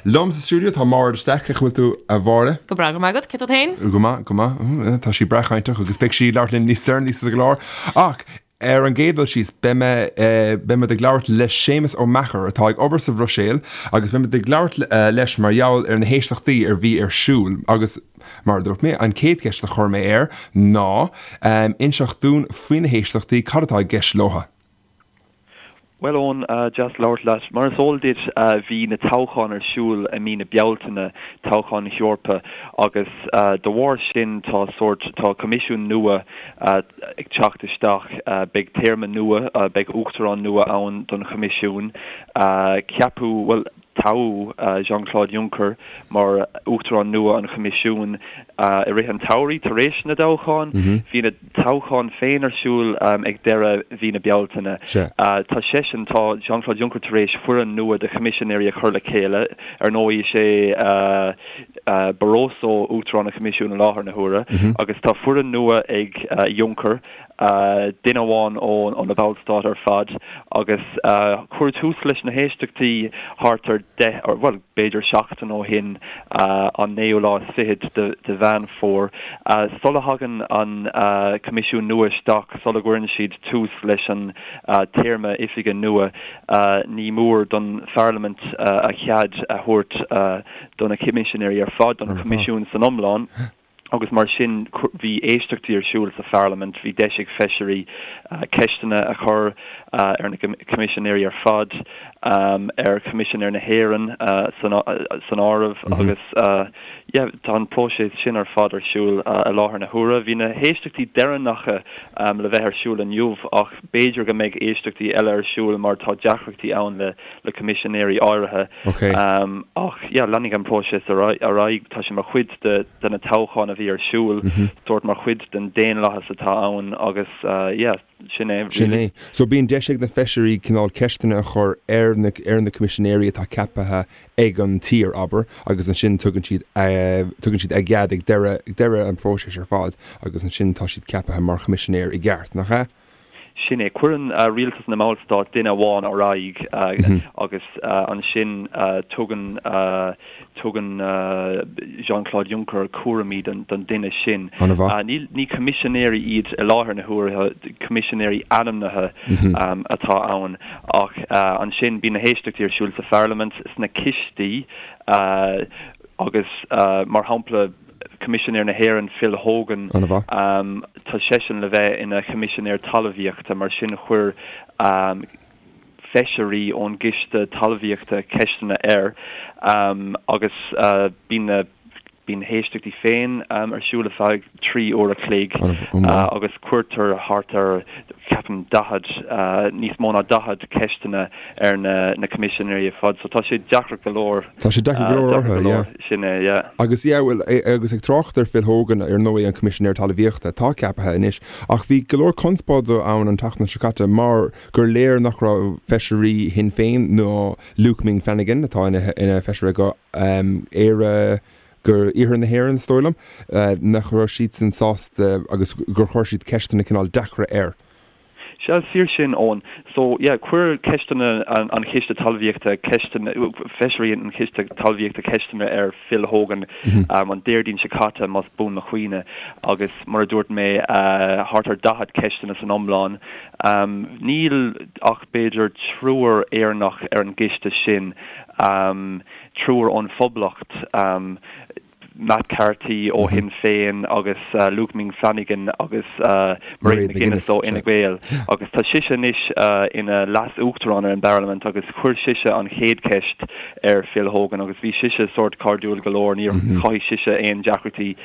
Liom sa stiúideo tá Máire de Staic, cén chaoi a bhfuil tú a Mháire? Go breá, go raibh maith agat, cé tú féin? Go maith, go maith. Tá sí breá cainteach agus beidh sí ag labhairt linn níos deireanaí sa gclár. Ach ar an gcéad dul síos, beidh mé, beidh muid ag labhairt le Séamus Ó Meachair atá ag obair sa Bhruiséil agus beidh muid ag labhairt leis mar gheall ar na héisteachtaí a bhí ar siúl agus mar a dúirt mé, an chéad cheist a chuir mé air ná inseacht dúinn faoi na héisteachtaí, cad atá i gceist leo? Bhuel Eoin, deas labhairt leat. Mar is eol duit bhí na toghcháin ar siúl i mí na Bealtaine, toghcháin na hEorpa, agus de bharr sin tá sórt, tá coimisiún nua ag teacht isteach, beidh téarma nua, beidh uachtarán nua ann don choimisiún, ceapadh, bhuel, toghadh Jean-Claude Juncker mar Uachtarán nua an Choimisiúin i rith an tsamhraidh tar éis na dtoghchán. Bhí na toghcháin féin ar siúl ag deireadh mhí na Bealtaine. Tá seisean, tá Jean-Claude Juncker tar éis foireann nua de choimisinéirí a chur le chéile. Ar ndóigh, is é Barroso Uachtarán an Choimisiúin i láthair na huaire agus tá foireann nua ag Juncker. duine amháin ó na Ballstáit ar fad agus cuireadh tús leis na héisteachtaí thart ar deich, bhuel, b'fhéidir seachtain ó shin, an naoú lá is fichead de Mheán Fómhair. Sula thagann an Coimisiún nua isteach, sula gcuireann siad tús leis an téarma oifige nua, ní mór don Pharlaimint a chead a thabhairt do na Coimisinéirí ar fad, don Choimisiún san iomlán. agus mar sin bhí éisteachtaí ar siúl sa Pharlaimint, bhí deis ag feisirí ceisteanna a chur ar na Coimisinéirí ar fad, ar Choimisinéir na hÉireann san áireamh agus yeah tá an próiseas sin ar fad ar siúl i láthair na huaire. Bhí na héisteachtaí deireanacha le bheith ar siúl inniu ach b'fhéidir go mbeidh éisteachtaí eile ar siúl mar tá deacrachtaí ann le le coimisinéirí áirithe. Ach yeah, leanfaidh an próiseas ar aghaidh. Tá sé mar chuid de de na toghcháin a bhí ar siúl, sórt mar chuid den daonlathas atá ann agus yeah, sin é really. Sin é. So bíonn deis ag na feisirí cineál ceisteanna a chur ar na ar na coimisinéirí atá ceaptha ag an tír, abair, agus ansin tugann siad tugann siad a gcead ag deireadh ag deireadh an phróisis ar fad agus ansin tá siad ceaptha mar choimisinéir i gceart, nach ea? Sin é. Cuireann rialtas na mBallstát duine amháin ar aghaidh agus ansin tugann tugann Jean-Claude Juncker cúraimí don duine sin. An-mhaith. Ní coimisinéirí iad i láthair na huaire, coimisinéirí ainmnithe atá ann. Ach ansin bíonn na héisteachtaí ar siúl sa Pharlaimint, sna cistí agus mar shampla, Coimisinéir na hÉireann, Phil Hogan, tá seisean le bheith ina Choimisinéir Talmhaíochta, mar sin chuir feisirí ón gCiste Talmhaíochta ceisteanna air agus bíonn na bíonn na héisteachtaí féin ar siúl ar feadh 3 uair a chloig agus cuirtear thart ar, ceapaim, 40, níos mó ná 40 ceisteanna ar na Coimisinéirí ar fad. So tá sé deacair go leor. Tá sé deacair go leor orthu, yeah. Sin é, yeah. Agus, yeah, bhuel, agus ag trácht ar Phil Hogan, ar ndóigh, an Coimisinéir Talmhaíochta, atá ceaptha anois, ach bhí go leor conspóide ann an tseachtain seo caite mar gur léir nach raibh feisirí Shinn Féin ná Luke Ming Flanagan, atá ina feisire go Éire, go Iarthar na hÉireann, is dóigh liom, nach raibh siadsan sásta agus gur chuir siad ceisteanna cineál deacra air. Sea, is fíor sin, Eoin. So, yeah, chuir ceisteanna an Chiste Talmhaíochta ceisteanna, feisirí an Chiste Talmhaíochta ceisteanna ar Phil Hogan an Déardaoin seo caite, más buan mo chuimhne, agus mar a dúirt mé, thart ar 40 ceisteanna san iomlán. Níl ach b'fhéidir triúr Éireannach ar an gciste sin, triúr ón Phoblacht. Matt Carthy ó Shinn Féin agus Luke Ming Flanagan agus Mairead McGuinness ó Fhine Gael agus tá sise anois ina Leas-Uachtarán ar an bParlaimint agus chuir sise an chéad cheist ar Phil Hogan agus bhí sise sórt cairdiúil go leor, níor chothaigh sise aon deacrachtaí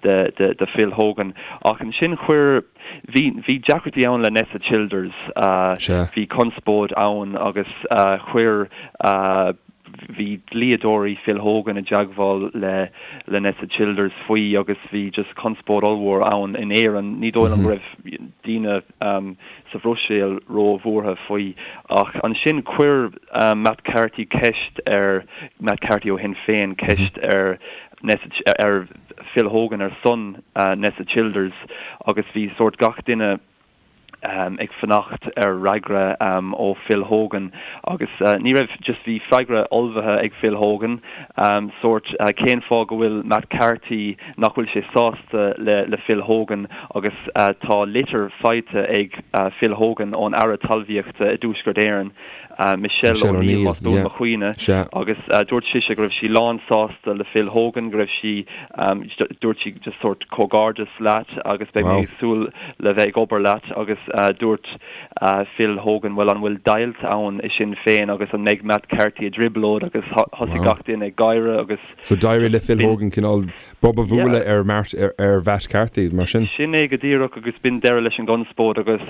do Phil Hogan. Ach ansin chuir, bhí, bhí deacrachtaí ann le Nessa Childers, bhí conspóid ann agus chuir, Bhí dlíodóirí Phil Hogan i dteagmháil le le Nessa Childers faoi agus bhí just conspóid ollmhór ann in Éirinn. Ní dóigh liom go raibh daoine sa Bhruiséil ró-bhuartha faoi. Ach ansin chuir Matt Carthy ceist ar, Matt Carthy ó Shinn Féin, ceist ar Nessa, ar Phil Hogan ar son Nessa Childers agus bhí sórt gach duine. ag fanacht ar fhreagra ó Phil Hogan agus ní raibh, just bhí freagra ullmhaithe ag Phil Hogan, sórt cén fáth go bhfuil Matt Carthy, nach bhfuil sé sásta le le Phil Hogan agus tá litir faighte ag Phil Hogan ón Aire Talmhaíochta i dTuaisceart Éireann. Michelle O'Neill, más buan mo chuimhne, agus dúirt sise go raibh sí lán sásta le Phil Hogan, go raibh sí, dúirt sí just sórt comhghairdeas leat agus beidh mé ag súil le bheith ag obair leat agus dúirt Phil Hogan bhuel an bhfuil deighilt ann i Sinn Féin agus an mbeidh Matt Carthy i dtrioblóid agus thosaigh gach duine ag gáire agus So d'éirigh le Phil Hogan cineál bob a bhualadh ar ar Mhatt Carthy mar sin? Sin é go díreach agus b'in deireadh leis an gconspóid agus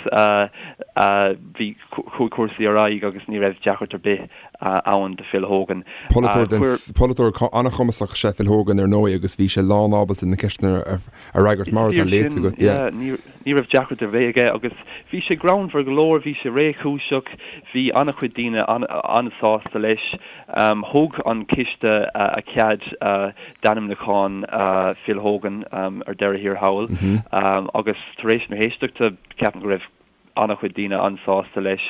bhí Chuaigh cúrsaí ar aghaidh agus ní raibh deacracht ar bith ann do Phil Hogan. Polaiteoir den, polaiteoir an-chumasach is ea Phil Hogan ar ndóigh agus bhí sé lán ábalta na ceisteanna a fhreagairt mar atá léite agat, yeah. Ní raibh deacracht ar bith aige agus bhí sé greannmhar go leor, bhí sé réchúiseach, bhí an-chuid daoine an-sásta leis. Thug an coiste a chead d'ainmniúchán Phil Hogan ar deireadh thiar thall agus tar éis na héisteachta ceapaim go raibh an-chuid daoine an-sásta leis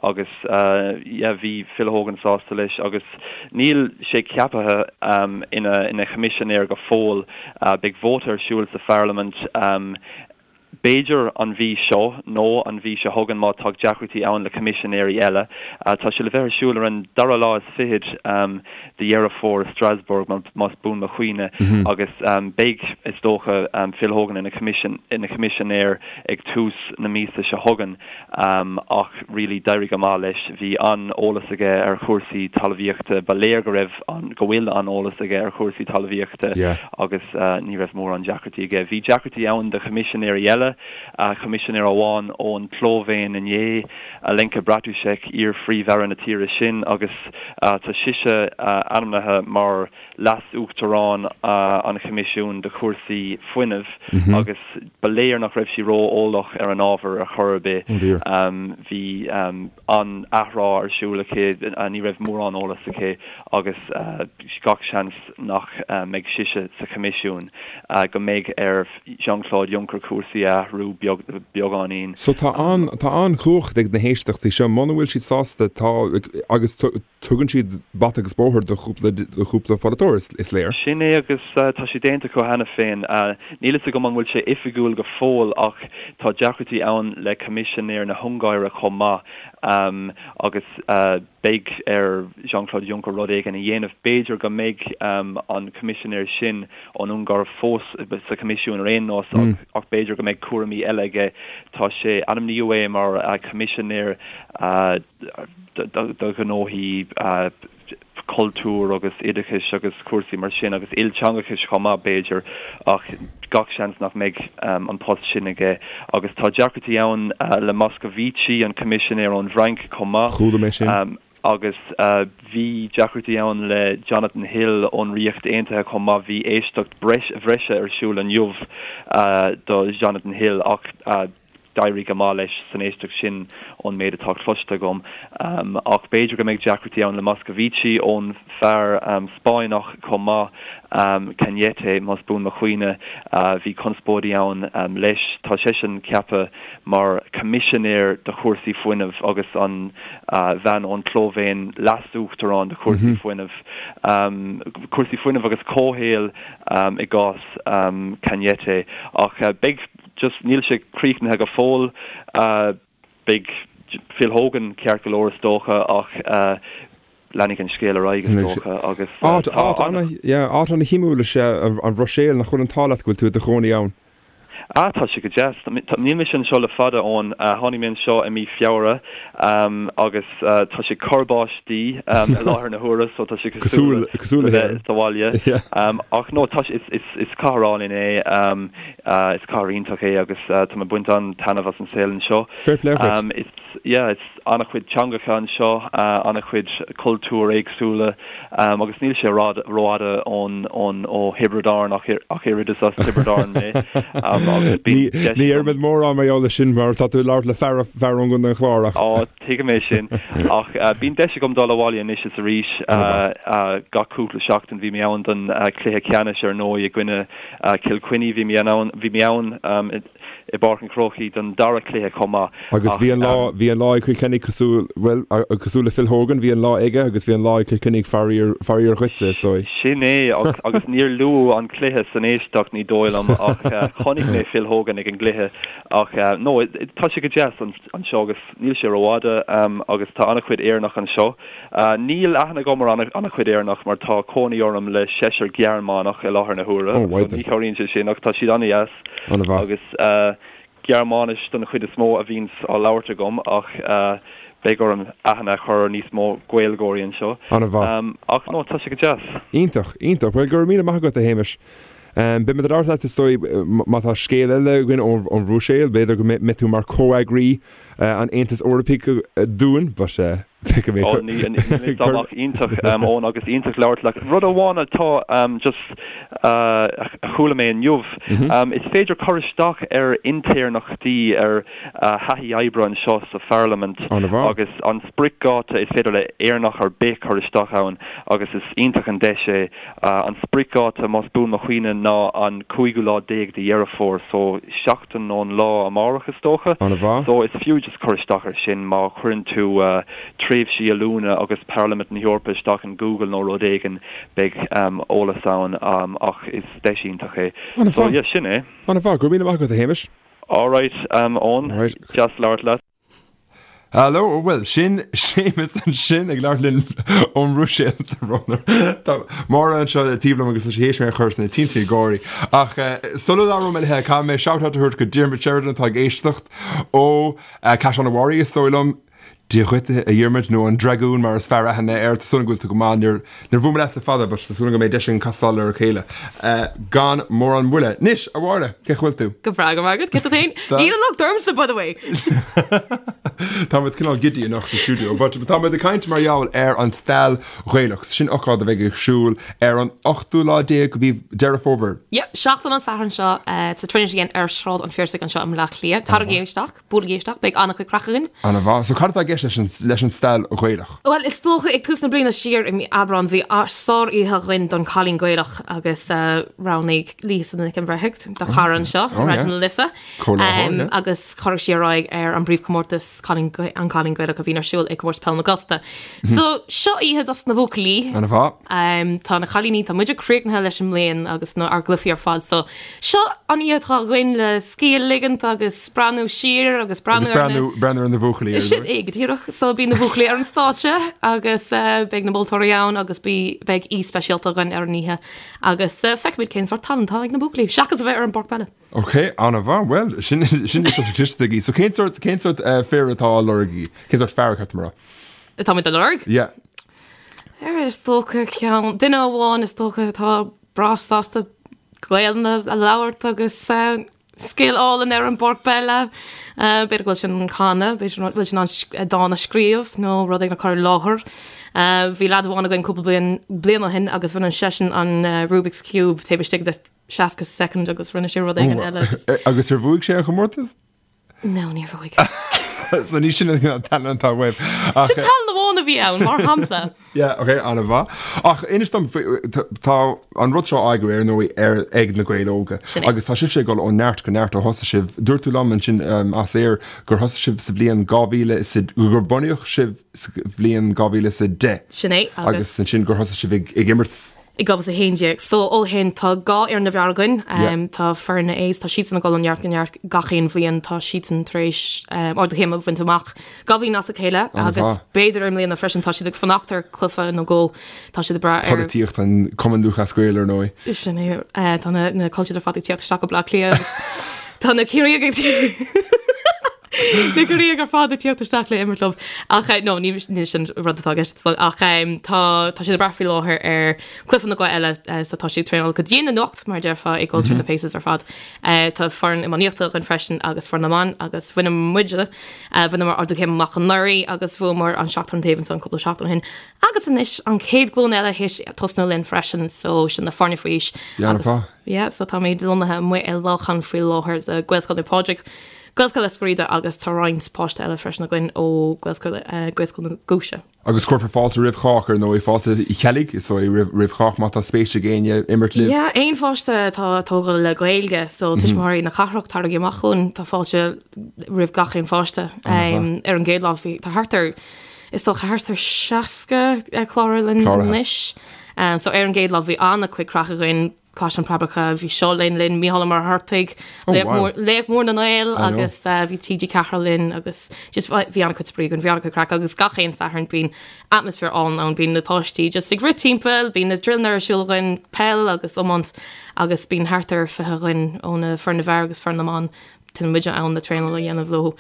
agus yeah bhí Phil Hogan sásta leis agus níl sé ceaptha ina ina choimisinéir go fóill. Beidh vóta ar siúl sa pharlaimint b'fhéidir an mhí seo nó an mhí seo chugainn má tá deacrachtaí ann le coimisinéirí eile. Tá sé le bheith ar siúl ar an dara lá is fichead de Dheireadh Fómhair i Strasbourg más buan mo chuimhne agus beidh is dócha Phil Hogan ina choimisinéir ag tús na míosa seo chugainn ach really d'éirigh go maith leis. Bhí an-eolas aige ar chúrsaí talmhaíochta, ba léir go raibh an, go bhfuil an-eolas aige ar chúrsaí talmhaíochta agus ní raibh mórán deacrachtaí aige. Bhí deacrachtaí ann do choimisinéirí eile, coimisinéir amháin ón tSlóivéin inné, Alenka Bratušek, iar-phríomh-aire na tíre sin agus tá sise ainmnithe mar Leas-Uachtarán an Choimisiúin do chúrsaí fuinnimh agus ba léir nach raibh sí ró-eolach ar an ábhar ar chor ar bith. Bhí an-athrá ar siúl aici, ní raibh mórán eolas aici agus gach seans nach mbeidh sise sa Choimisiún, go mbeidh ar Jean-Claude Juncker cúrsaí a athrú beagáinín. So tá an-chumhacht ag na héisteachtaí seo, muna bhfuil siad sásta tá agus Tugann siad bata agus bóthar do chúpla do chúpla pholaiteoir, is léir. Sin é agus tá sé déanta acu cheana féin. Níl fhios agam an bhfuil sé oifigiúil go fóill ach tá deacrachtaí ann le Coimisinéir na hUngáire chomh maith agus beidh ar Jean-Claude Juncker rud éigin a dhéanamh. B'fhéidir go mbeidh an Coimisinéir sin ón Ungáir fós sa Choimisiún ar aon nós ach b'fhéidir go mbeidh cúraimí eile aige. Tá sé, ainmníodh é mar Choimisinéir do ghnóthaí cultúir agus oideachais agus cúrsaí mar sin agus ilteangachais chomh maith b'fhéidir ach gach seans nach mbeidh an post sin aige. Agus tá deacrachtaí ann le Moscovici, an Coimisinéir ón bhFrainc chomh maith. Chuala mé sin. Agus bhí deacrachtaí ann le Jonathan Hill ón Ríocht Aontaithe chomh maith. Bhí éisteacht bhreise ar siúl inniu do Jonathan Hill ach D'éirigh go maith leis san éisteacht sin ón méid atá cloiste agam. Ach b'fhéidir go mbeidh deacrachtaí ann le Moscovici ón bhfear Spáinneach chomh maith, Cañete, más buan mo chuimhne. Bhí conspóidí ann leis. Tá seisean ceaptha mar choimisinéir do chúrsaí fuinnimh agus an bhean ón tSlóivéin leas-uachtarán do chúrsaí fuinnimh. Cúrsaí fuinnimh agus comhshaoil i gcás Cañete. Ach beidh. Just níl sé críochnaithe go fóill. Beidh Phil Hogan ceart go leor is dócha ach leanfaidh an scéal ar aghaidh is dócha agus Áit tá ana, yeah, áit ana shuimiúil is ea an Bhruiséil, nach bhfuil an t-ádh leat go bhfuil tú i do chónaí ann? Ah, tá sé go deas. Níl mise anseo le fada, Eoin. Tháinig mé anseo i mí Feabhra agus tá sé ag cur báistí i láthair na huaire so tá sé cosúil le bheith sa bhaile. Ach no, tá sé, is cathair álainn é. Is cathair iontach é agus tá mé ag baint an-taitneamh as an saol anseo. Fair play dhuit. Is, yeah, is an-chuid teangacha anseo, an-chuid cultúir éagsúla agus níl sé rófhada ón, ón, ó Thiobraid Árann ach, ach oiread is as Tiobraid Árann mé. Agus bíonn deis Ní agam. déarfaimid mórán mar gheall air sin mar tá tú ag labhairt le fear fear ón gContae an Chláir ach. Á, tuigim é sin. Ach bíonn deis agam dul abhaile anois is arís gach cúpla seachtain. Bhí mé ann don chluiche ceannais ar ndóigh i gcoinne Cill Chainnigh. Bhí mé ann, bhí mé ann i bPáirc an Chrócaigh don dara cluiche chomh maith. Agus bhí an lá, bhí an lá ag Cill Chainnigh cosúil, bhuel, cosúil le Phil Hogan, bhí an lá aige agus bhí an lá ag Cill Chainnigh faraor, faraor dhuitse, is dóigh. Sin é, agus níor luadh an cluiche san éisteacht, ní dóigh liom, ach chonaic mé Phil Hogan ag an gcluiche. Ach no, tá sé go deas anseo agus níl sé rófhada agus tá an-chuid Éireannach anseo. Níl aithne agam ar an-chuid Éireannach mar tá cónaí orm le seisear Gearmánach i láthair na huaire, so ní chabhraíonn sé sin ach tá siad an-dheas agus Gearmáinis don chuid is mó a bhíonns á labhairt agam ach beidh orm aithne a chur ar níos mó Gaeilgeoirí anseo. An-mhaith. Ach no, tá sé go deas. Iontach, iontach. Bhuel, go raibh míle maith agat, a Shéamais. Beidh muid ag labhairt leat, is dóigh, má tá scéal eile againn ón Bhruiséil, b'fhéidir go mbeidh tú mar comheagraí an Aontais Eorpaigh dúinn, but feicfidh mé. Ó, ní, ní, dá mbeadh iontach, Eoin, agus iontach labhairt leat. Rud amháin atá just a chuala mé inniu, is féidir cur isteach ar intéirneachtaí, ar thaithí oibre anseo sa Pharlaimint agus an spriocdháta is féidir le Éireannach ar bith cur isteach ann agus is iontach an deis é. An spriocdháta, más buan mo chuimhne, ná an cúigiú lá déag de Dheireadh Fómhair, so seachtain ón lá amárach is dócha. An-mhaith. So is fiú just cur isteach ar sin má chuireann tú tréimhsí oiliúna agus Parlaimint na hEorpa isteach in Google nó rud éigin, beidh eolas ann ach is deis iontach é. So yeah, sin é. An-mhaith. Go raibh míle maith agat, a Shéamais. Alright, Eoin. Deas labhairt leat. Hello, bhuel, sin Séamus ansin ag labhairt linn ón mBruiséil, Tá Máire anseo taobh liom agus tá sí théis mé a chur sna tinte ag gáirí. Ach sula labhróidh mé léi, caithfidh mé shout-out a thabhairt go Diarmuid Sheridan atá ag éisteacht ó Caisleán an Bharraigh, is dóigh liom. Dia dhuit, a Dhiarmuid, nó an Dragún mar is fearr aithne air. Tá súil agam go bhfuil tú go maith. Níor Níor bhuail mé leat le fada, but tá súil agam go mbeidh deis againn castáil ar a chéile gan mórán moille. Anois, a Mháire, cén chaoi a bhfuil tú? Go breá, go raibh maith agat, cé tú féin? Níl an locht ormsa, by the way! Tá muid cineál giddy anocht sa stiúideo, but tá muid ag caint mar gheall ar an Stail Ghaelach. Sin ócáid a bheidh ag siúl ar an ochtú lá déag de mhí Deireadh Fómhair. Yeah, seachtain an Sathairn seo sa Trinity Inn ar Shráid an Phiarsaigh anseo i mBleá Cliath. Taraigí isteach. Buailigí isteach, beidh an-chuid craic againn. Ana-mhaith. So cad atá i gceist leis an, leis an Stail Ghaelach? Bhuel, is dócha ag tús na bliana siar i mí Aibreán bhí sár-oíche againn don Cailín Gaelach agus roghnaigh Lisa Nic an Bhreithimh, do chara anseo, oh, Raidió na Life, um, yeah. agus chuir sí ar aghaidh ar an bpríomhchomórtas Cailín, an Cailín Gaelach a bhíonn ar siúl ag Comórtas Peile na Gaeltachta. Mm. So seo oíche dos na buachaillí. Ana-mhaith. Um, tá na cailíní, tá muide críochnaithe leis an mbliain agus na ár gcluichí ar fad, so Seo an oíche atá againn le scíth a ligint agus breathnú siar agus breathnú ar na... breathnú ar na buachaillí. Ar Sin é go díreach. So beidh na buachaillí ar an stáitse agus beidh na moltóirí ann agus beidh aoi speisialta againn ar an oíche agus feicfimid cén sórt tallann atá ag na buachaillí, seachas a bheith ar an bpáirc peile. Ok, an-mhaith. Bhuel, sin sin cliste agaibh. So cén sórt cén sórt fir atá á lorg agaibh? Cén sórt fear ceart mar? Atáimid á lorg? Yeah. Ar is dócha ceann duine amháin is dócha atá breá sásta Gaelainn a labhairt agus scil álainn ar an bpáirc peile. B'fhéidir go bhfuil sé in ann canadh, b'fhéidir go bhfuil sé in ann dán a scríobh nó rud éigin a chur i láthair. Bhí leaid amháin againn cúpla bliain, bliain ó shin agus rinne seisean an Rubik's Cube taobh istigh de 60 soicind agus rinne sé rud éigin eile. Agus ar bhuaigh sé an chomórtas? No, níor bhuaigh. So ní sin an tallann atá uaibh. Sin tallann amháin a bhí ann, mar shampla. Yeah, ok, an-mhaith. Ach inis dom, tá an rud seo á eagrú ar ndóigh ar ag na Gaeil Óga. Sin é. Agus tá sibhse ag dul ó neart go neart ó thosaigh sibh. Dúirt tú liom ansin as aer gur thosaigh sibh sa bhliain 2000 is a, gur bunaíodh sibh sa bhliain 2010. Sin é, agus. Agus ansin gur thosaigh sibh ag imirt. i 2011. So ó shin tá 2 fhoireann na bhfear againn. Tá foireann na A's, tá siadsan ag dul ó neart go neart gach aon bhliain. Tá siadsan tar éis ardú céime a bhaint amach 2 bhliain as a chéile agus b'fhéidir i mbliana freisin tá siad ag fanacht ar chluiche nó dhó. Tá siad ag brath ar. Polaitíocht an Cumann Lúthchleas Gael ar ndóigh. Sin é. Tá na cultures ar fad ag tíocht isteach go Bleá Cliath agus tá na Ciarraíoch ag. Na Corcaígh ar fad ag tíocht isteach le imirt leo. Ach no, ní sin rud atá i gceist ach tá tá siad ag brath faoi láthair ar cluiche nó dhó eile so tá siad ag traenáil go dian anocht mar a déarfá ag dul through na paces ar fad. Tá foireann iománaíochta againn freisin agus foireann na mban agus bhaineamar muide bhaineamar ardú céime amach anuraidh agus bhuamar an seachtar an taobh ansan cúpla seachtain ó shin. Agus anois an chéad ghlúin eile théis tosnú linn freisin so sin na foirne faoi aois agus yeah so táimid lonnaithe amuigh i Lochan faoi láthair de Gaelscoil Naomh Pádraig, Gaelscoil Eiscir Riada agus tá roinnt páiste eile freisin againn ó Gaelscoil Gaelscoil na Giúise. Agus cuirfear fáilte roimh chách ar ndóigh, fáilte Uí Cheallaigh is dóigh roimh chách má tá spéis ag éinne imirt libh. Yeah, aon pháiste atá tógtha le Gaeilge so tuismitheoirí na cathrach taraigí amach chugainn, tá fáilte roimh gach aon pháiste. Ar an gcéad lá bhí tá thart ar Is dócha thart ar 60 cláraithe linn anois. So ar an gcéad lá bhí an-chuid craic againn, Caisleán Preabacha, bhí Seo Linn linn, Mícheál Ó Muircheartaigh, Laoch Mór na nGael agus bhí TG4 linn agus just bhí an-chuid spraoi againn, bhí an-chuid craic agus gach aon Satharn bíonn atmaisféar álainn ann, bíonn na páistí just ag rith timpeall, bíonn na drillanna ar siúl againn, peil agus iomáint agus bíonn thart ar 20 againn ó na foireann na bhfear agus foireann na mban Téann muide ann le traenáil a dhéanamh leo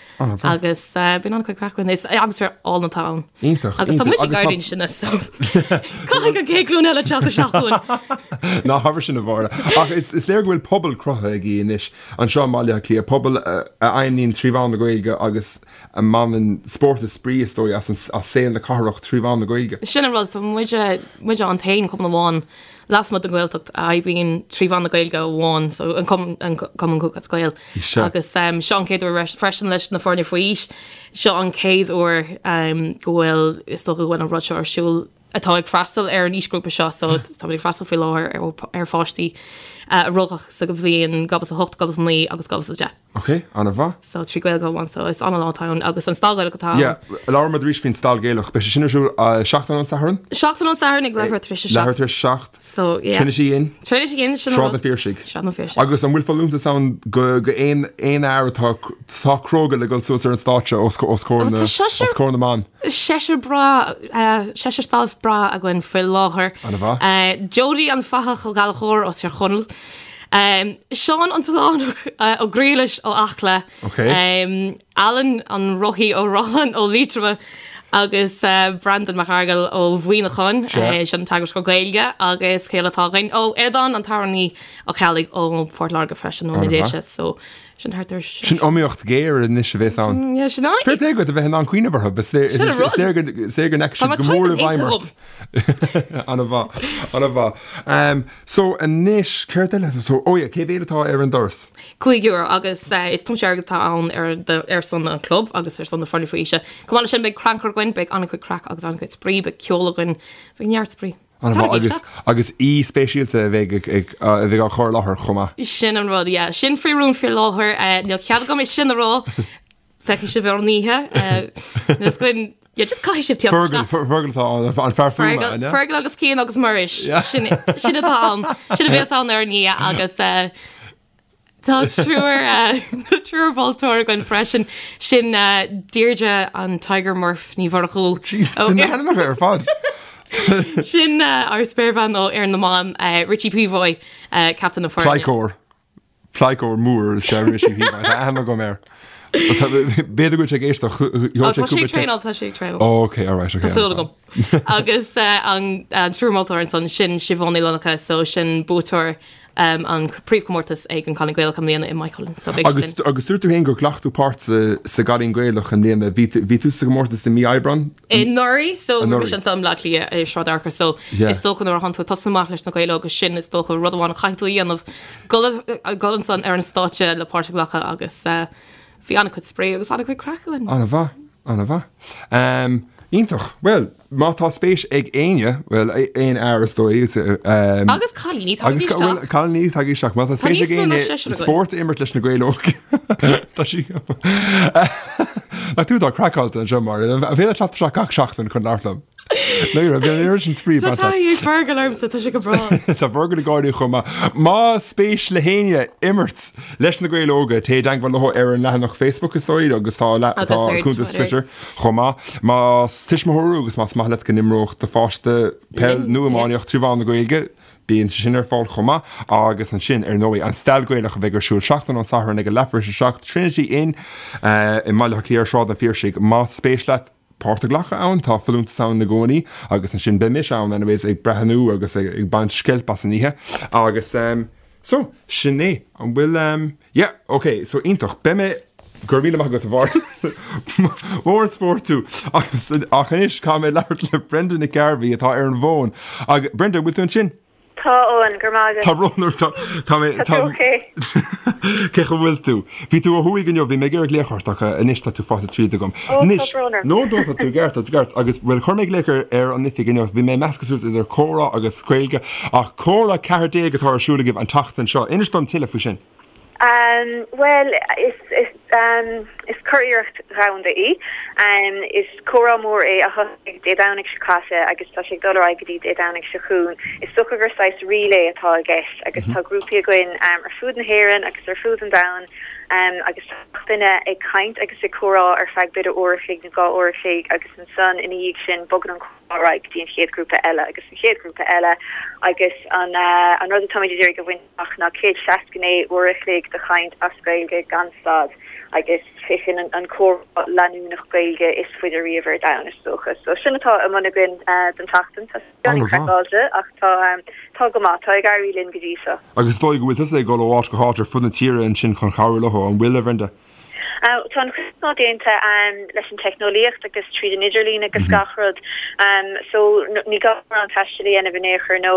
agus bíonn an-chuid craic againn. Is atmaisféar álainn atá ann. Iontach. Agus tá muid ag éirí níos sine so caithfidh an chéad ghlúin eile teacht isteach chugainn. Ná habair sin a Mháire. Ach is léir go bhfuil pobal cruthaithe agaibh anois anseo i mBaile Átha Cliath, pobal a fheidhmníonn trí mheán na Gaeilge agus a mbaineann spórt is spraoi is dóigh as saol na cathrach trí mheán na Gaeilge. Sin an rud, tá muide muide an t-aon chumann amháin lasmuigh den Ghaeltacht a oibríonn trí mheán na Gaeilge amháin, so an Cumann an Cumann Lúthchleas Gael. Agus seo an chéad uair freisin leis na foirne faoi aois, seo an chéad uair go bhfuil, is dócha go bhfuil an rud seo ar siúl atá ag freastal ar an aoisghrúpa seo, so táimid ag freastal faoi láthair ar pháistí a rugadh sa bhliain 2008, 2009 agus 2010. Ok, an-mhaith. So 3 Gaeilge amháin so is an-lá atá ann agus an Stail Ghaelach atá ann. Yeah, labhair muid arís faoin Stail Ghaelach. Beidh sé sin ar siúl seachtain ón Satharn? Seachtain ón Satharn ag leathuair tar éis a seacht. Leathuair tar éis a seacht. So yeah. Trinity Inn. Trinity Inn, sin an rud. Sráid na Phiarsaigh. Sráid na Phiarsaigh. Agus an bhfuil folúntas ann go go aon aon fhear atá atá cróga le dul suas ar an stáitse os os comhair na os comhair na mban? Seisear breá seisear staff breá againn faoi láthair. An-mhaith. Jody an Fathach Ó Gallchóir ó Tír Chonaill. Seán an tOileánach Ó Griallais ó Acla, Alan an Rothaí Ó Rotháin ó Liatroma agus Breandán Mac Fhearghail ó Mhuineachán, sin an teagascóir Gaeilge agus cé eile atá againn? Ó Aodán an t-amhránaí Ó Ceallaigh ó Phort Láirge freisin ó na Déise so sin thart ar Sin iomaíocht ghéar anois a bhéas ann. Yeah, sin an. Fair play duit a bheith in ann cuimhneamh orthu, is léir go ndeachaigh siad go mór i bhfeidhm ort. An-mhaith, an-mhaith. So anois, céard eile? So, oh yeah, cé mhéad atá ar an doras? €5 agus is tiomsú airgid atá ann ar ar son an chlub agus ar son na foirne faoi aois. Chomh maith leis sin beidh crannchur againn, beidh an-chuid craic agus an-chuid spraoi, beidh ceol againn, beidh neart spraoi. An-mhaith agus agus aoi speisialta a bheidh ag a bheidh á chur i láthair chomh maith. Sin an rud, yeah. Sin faoi rún faoi láthair, níl cead agam é sin a rá. Feicfidh sibh ar an oíche. Níl fhios againn, yeah, just caithfidh sibh tíocht isteach. Fergal, Fergal atá ann, an fear fuaime, an ea? Fergal agus Cian agus Muiris. Sin, sin atá ann. Sin a bhéas ann ar an oíche agus tá triúr, triúr mholtóir againn freisin. Sin Deirdre an Tiger Murph Ní Mhurchú. Jesus, na hainmneacha ar fad. Sin ár spéirbhean ó Fhoireann na mBan, Richie Peavoy, captaen na foirne. Pleidhceoir. Pleidhceoir mór is ea Richie Peavoy. Tá aithne agam air. B'fhéidir go bhfuil sé ag éisteacht. Ó, tá sé ag traenáil, tá sé ag traenáil. Ó, ok, alright, ok. Tá súil agam. Agus an triúr moltóir ansan, sin Siobhán Ní Fhlannchadha, so sin buaiteoir an príomhchomórtas ag an Cailín Gaelach i mbliana i Maigh Cuilinn. So beidh sí linn. Agus dúirt tú féin gur ghlac tú páirt sa gCailín Gaelach i mbliana. Bhí tú sa gcomórtas i mí Aibreán? Anuraidh, so bhí mise anso i mBleá Cliath i Sráid Fhearchair, so is dócha nuair a thánn tú ag tosnú amach leis na Gaeil Óga sin is dócha rud amháin a chaithfidh tú a dhéanamh Dul ansan ar an stáitse le páirt a ghlacadh agus bhí an-chuid spraoi agus an-chuid craic againn. An-mhaith, an-mhaith. Iontach. Bhuel, má tá spéis ag éinne, bhuel, aon fhear is dóigh, is, Agus cailíní, tagaigí isteach. Bhuel, cailíní, tagaigí isteach. Má tá spéis ag éinne spórt a imirt leis na Gaeil Óga, tá sí. Nach tú atá craiceáilte anseo, Máire. An féidir teacht isteach gach seachtain chun labhairt liom? Ní raibh an oiread sin spraoi Tá taithí ag Fergal ormsa, tá sé go breá. Tá Fergal ag gáirí chomh maith. Más spéis le héinne imirt leis na Gaeil Óga, téigh i dteagmháil leo ar an leathanach Facebook is dóigh agus tá Agus tá ar cuntas Twitter. Twitter chomh maith. Más tuismitheoir thú agus más maith leat go n-imreodh do pháiste peil Linn, nó yeah. iománaíocht trí mheán na Gaeilge, Bíonn sé sin ar fáil chomh maith agus ansin, ar ndóigh, an Stail Gaelach a bheidh ar siúl seachtain ón Satharn ag a leathuair tar éis a 7, Trinity Inn i mBaile Átha Cliath ar Sráid an Phiarsaigh. Más spéis leat páirt a ghlacadh ann, tá folúntas ann i gcónaí agus ansin beidh mise ann anyways ag breathnú agus ag baint sceilp as an oíche agus so, sin é. An bhfuil, yeah, ok, so iontach. Beidh mé. Go raibh míle maith agat a Mháire. Mór an spórt tú. Agus ach anois caithfidh mé labhairt le Brenda Nic Gairbhí atá ar an bhfón. Agus Brenda, bhfuil tú ansin? Tá, Eoin, go raibh maith agat. Tá brón orm, tá, tá mé, Tá tú ok? Cén chaoi a bhfuil tú? Bhí tú ó thuaidh inniu, bhí mé ag iarraidh glaoch ort ach anois tá tú faighte tríd agam. Ó, tá Anois, brón orm. no, no, tá tú i gceart, tá tú i gceart. Agus, bhuel, chuir mé glaoch ar, ar an oifig inniu, bhí mé ag meascadh suas idir comhrá agus Gaeilge, ach comhrá 14 atá ar siúl agaibh an tseachtain seo. Inis dom tuilleadh faoi sin. Bhuel, is, is, is curiarracht dhomhanda í. Is comhrá mór é a thosaigh Dé Domhnaigh seo caite agus tá sé ag dul ar aghaidh go dtí Dé Domhnaigh seo chugainn. Is dócha gur saghas relay atá i gceist agus tá grúpaí againn ar fud na hÉireann agus ar fud an domhain agus tá gach duine ag caint agus ag comhrá ar feadh b'fhéidir uair a chloig nó dhá uair a chloig agus ansan ina dhiaidh sin bogann an comhrá ar aghaidh go dtí an chéad ghrúpa eile agus an chéad ghrúpa eile agus an an rud atáimid ag iarraidh a bhaint amach ná 169 uair a chloig de chaint as Gaeilge gan stad agus sé sin an an comhrá leanúnach Gaeilge is faide riamh ar domhan is dócha. So sin atá i mbun againn don tseachtain. Tá sé beagáinín craiceáilte ach tá tá go maith, tá ag éirí linn go dtí seo. Agus is dóigh go bhfuil tusa ag dul ó áit go háit ar fud na tíre ansin chun cabhrú leo, an bhfuil, a Bhrenda? Tá an chuid is mó déanta leis an teicneolaíocht agus tríd an idirlíon agus gach rud so ní gá mórán taistil a dhéanamh in aon chor nó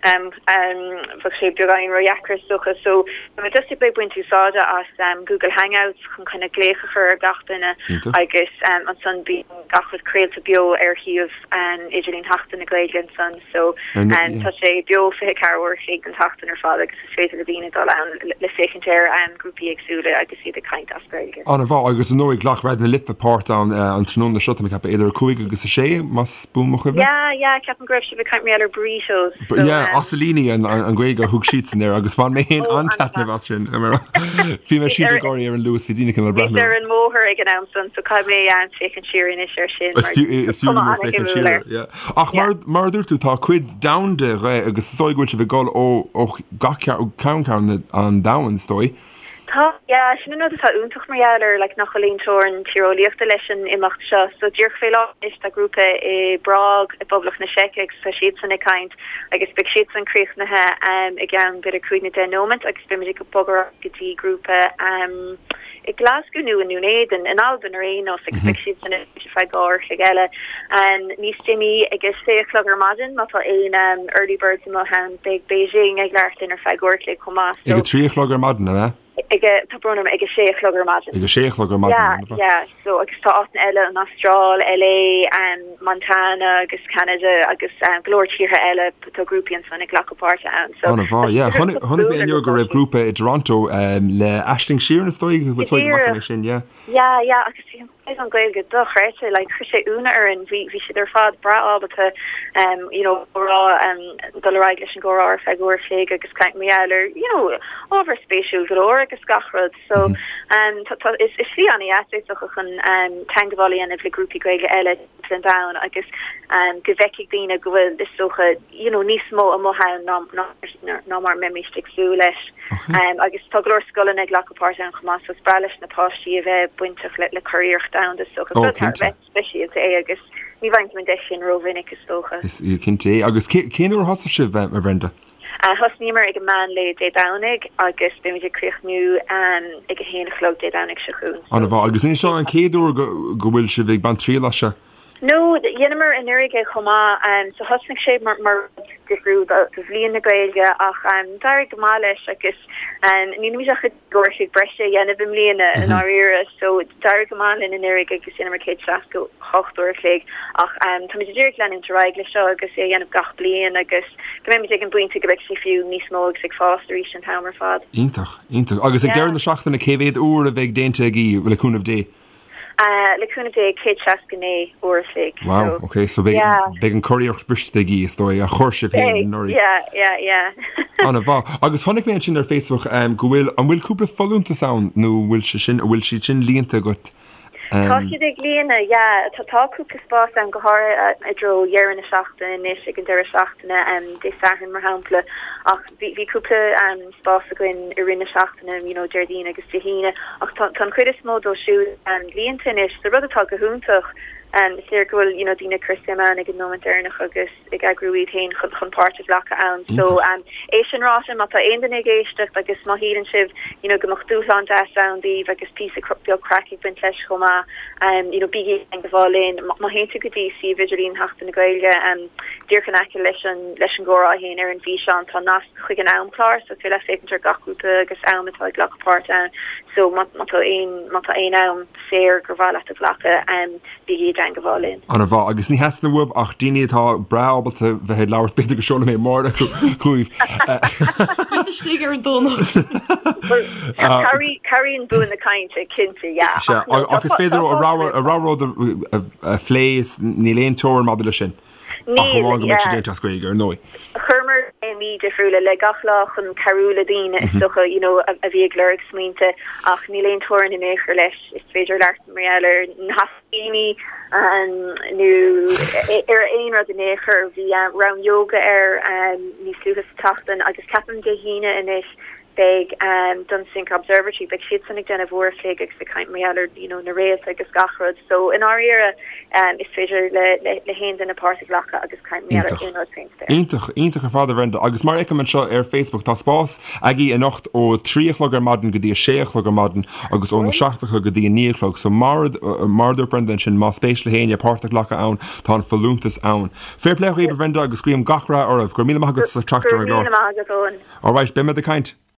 bheadh sé beagáinín ródheacair is dócha. So tá muid just ag baint úsáide as Google Hangouts chun kind of glaoch a chur ar gach duine agus ansan bíonn gach rud craolta beo ar shuíomh idirlín Sheachtain na Gaeilge ansan so tá sé beo 24 uair a chloig den tseachtain ar fad agus Is féidir le daoine dul ann le féachaint ar grúpaí éagsúla agus iad ag caint as Gaeilge. An-mhaith, agus ar ndóigh ghlac Raidió na Life páirt ann an tráthnóna seo, tá mé ag ceapadh, idir 5 agus 6, más buan mo chuimhne. Yeah, yeah, ceapaim go raibh sibh ag caint mar gheall ar burritos. So, yeah, asailíní an Ghaeilge a thug siadsan air agus bhain mé féin an-taitneamh as sin. Bhí mé siúd ag gáirí ar an Luas, bhí daoine cineál ag breathnú. Bhíos ar an mbóthar ag an am san, so caithfidh mé féachaint siar anois air sin. Is fiú go mór féachaint siar air, yeah. Ach mar a dúirt tú, tá cuid domhanda dhe agus is dóigh go bhfuil sibh ag dul ó ó gach ceann ceann an domhain, is dóigh. Tá, yeah, sin an rud atá iontach mar gheall air, like, nach bhfuil aon teorainn tíreolaíochta leis an imeacht seo. So díreach fé láthair anois tá grúpa i bPrág i bPoblacht na Seice agus tá siadsan ag caint agus beidh siadsan críochnaithe i gceann b'fhéidir cúig nó deich nóimeant agus beimid ag bogadh ar aghaidh go dtí grúpa i nGlasgow nó i nDún Éideann, in Albain ar aon nós, agus beidh siad san ar feadh dhá uair a chloig eile. Níos déanaí, ag a sé a chlog ar maidin, má tá aon early birds amuigh ann, beidh Beijing ag labhairt linn ar feadh uair a chloig chomh maith. Ag a trí a chlog ar maidin, an ea? Ag a, tá brón orm, ag a sé a chlog ar maidin. Ag a sé a chlog ar maidin, Yeah, yeah, so agus tá áiteanna eile, an Astráil, LA, Montana agus Ceanada agus go leor tíortha eile, tá grúpaí ansan ag glacadh páirte ann. So, An-mhaith, yeah. Chonaic mé inniu go raibh grúpa i dToronto le Aisling Sheeran is dóigh, go bhfaca mé sin, yeah. Yeah, yeah, agus bhí an caighdeán Gaeilge dochreidte, like chuir sé ionadh orainn, bhí bhí siad ar fad breá ábalta you know comhrá dul ar aghaidh leis an gcomhrá ar feadh uair a chloig agus caint mar gheall ar you know ábhar spéisiúil go leor agus gach rud. So tá tá is is slí an-dheas é is dócha chun teangmháil a dhéanamh le grúpaí Gaeilge eile timpeall an domhain agus go bhfeicfidh daoine go bhfuil is dócha you know níos mó amuigh ann ná ná ná mar a mbeimíst ag súil leis. Agus tá go leor scoileanna ag glacadh páirt ann chomh maith so is breá leis na páistí a bheith bainteach le le curiarracht domhanda is dócha. Rud thar a bheith speisialta é agus ní bhfaigheann tú an deis sin rómhinic is dócha. Is cinnte é. Agus cén uair a thosaigh sibh, a Bhrenda? Thosnaíomar ag an meán lae Dé Domhnaigh agus beimid ag críochnú ag a haon a chlog Dé Domhnaigh seo chugainn. An-mhaith. Agus an é seo an chéad uair go bhfuil sibh ag baint triail as seo? No, dheineamar anuraidh é chomh maith. So thosnaigh sé mar rud difriúil do Bhliain na Gaeilge ach d'éirigh go maith leis agus nílimid ach ag uair a chloig breise a dhéanamh i mbliana i ndáiríre. So d'éirigh go maith linn anuraidh agus dheineamar 168 uair a chloig ach táimid ag iarraidh leanúint ar aghaidh leis seo agus é a dhéanamh gach bliain agus go mbeimid ag an bpointe go mbeidh sé fiú níos mó agus ag fás arís an t-am ar fad. Iontach, iontach. Agus ag deireadh na seachtaine cé mhéad uair a bheidh déanta agaibh le cúnamh Dé? Le cúnamh Dé, 169 uair a chloig. Wow, ok, so beidh, yeah. beidh an curiarracht briste agaibh, is dóigh, a chuir sibh féin anuraidh. Yeah, yeah, yeah. An-mhaith. Agus chonaic mé ansin ar Facebook um, go bhfuil, an bhfuil cúpla folúntas ann nó bhfuil sé sin, bhfuil siad sin líonta agat? Tá siad ag líonadh, yeah. Tá tá cúpla spás ann, go háirithe i dtreo dheireadh na seachtaine anois, ag an deireadh seachtaine, Dé Sathairn mar shampla, ach bhí bhí cúpla spás againn i rith na seachtaine, you know, Déardaoin agus Dé hAoine, ach tá tá an chuid is mó dóibh siúd líonta anois, so rud atá go hiontach. Is léir go bhfuil, you know, daoine ag cur suim ann ag an nóiméad deireanach agus. ag eagrú iad féin chun páirt a ghlacadh ann. So, é sin ráite, má tá aon duine ag éisteacht agus má shíleann sibh, you know, go mbeadh dúshlán deas ann daoibh agus píosa beag craic ag baint leis chomh maith, you know, bígí i dteangabháil linn. Má théann tú go dtí suíomh idirlín Sheachtain na Gaeilge, díreach in aice leis an leis an gcomhrá féin ar an bhfíseán, tá nasc chuig an amchlár, so is féidir leat féachaint ar gach grúpa agus am atá ag glacadh páirt ann. So, má tá aon má tá aon am saor gur mhaith leat a ghlacadh, Bígí i dteangabháil linn. Ana mhaith. Agus ní theastaíonn uaibh ach daoine atá breá ábalta bheith ag labhairt, b'fhéidir go seolfaidh mé Máire chugaibh. Thíos istigh ar an Domhnach. Bhuel, cabhraíonn bua na cainte, cinnte, yeah. Sea, ach is féidir a rogha rud a phlé, níl aon teorainn maidir leis sin. Ach amháin go mbeidh sé déanta as Gaeilge, ar ndóigh. Chuireamar téamaí difriúla le gach lá chun cabhrú le daoine is dócha, you know, a bhí ag lorg smaointe ach níl aon teorainn in aon chor leis. Is féidir labhairt mar gheall ar na haiscíní nó ar aon rud in aon chor. Bhí rang yoga air níos luaithe sa tseachtain agus ceapaim Dé hAoine anois beidh Dunsink Observatory, beidh siadsan ag déanamh uair a chloig agus ag caint mar gheall ar you know na réalta agus gach rud. So i ndáiríre is féidir le le haon duine páirt a ghlacadh agus caint mar gheall ar aon rud faoin spéir. Iontach, iontach ar fad a Bhrenda. Agus mar a fheicim anseo ar Facebook tá spás agaibh anocht ó 3 a chlog ar maidin go dtí 6 a chlog ar maidin agus óna 7 a chlog go dtí 9 a chlog. So mar mar a dúirt Brenda ansin más spéis le héinne páirt a ghlacadh ann tá an folúntas ann. Fair play dhaoibh a Bhrenda agus guím gach rath oraibh. Go raibh míle maith agat as teacht ar an gclár. Go raibh míle maith agat Eoin. Alright, beidh muid ag caint.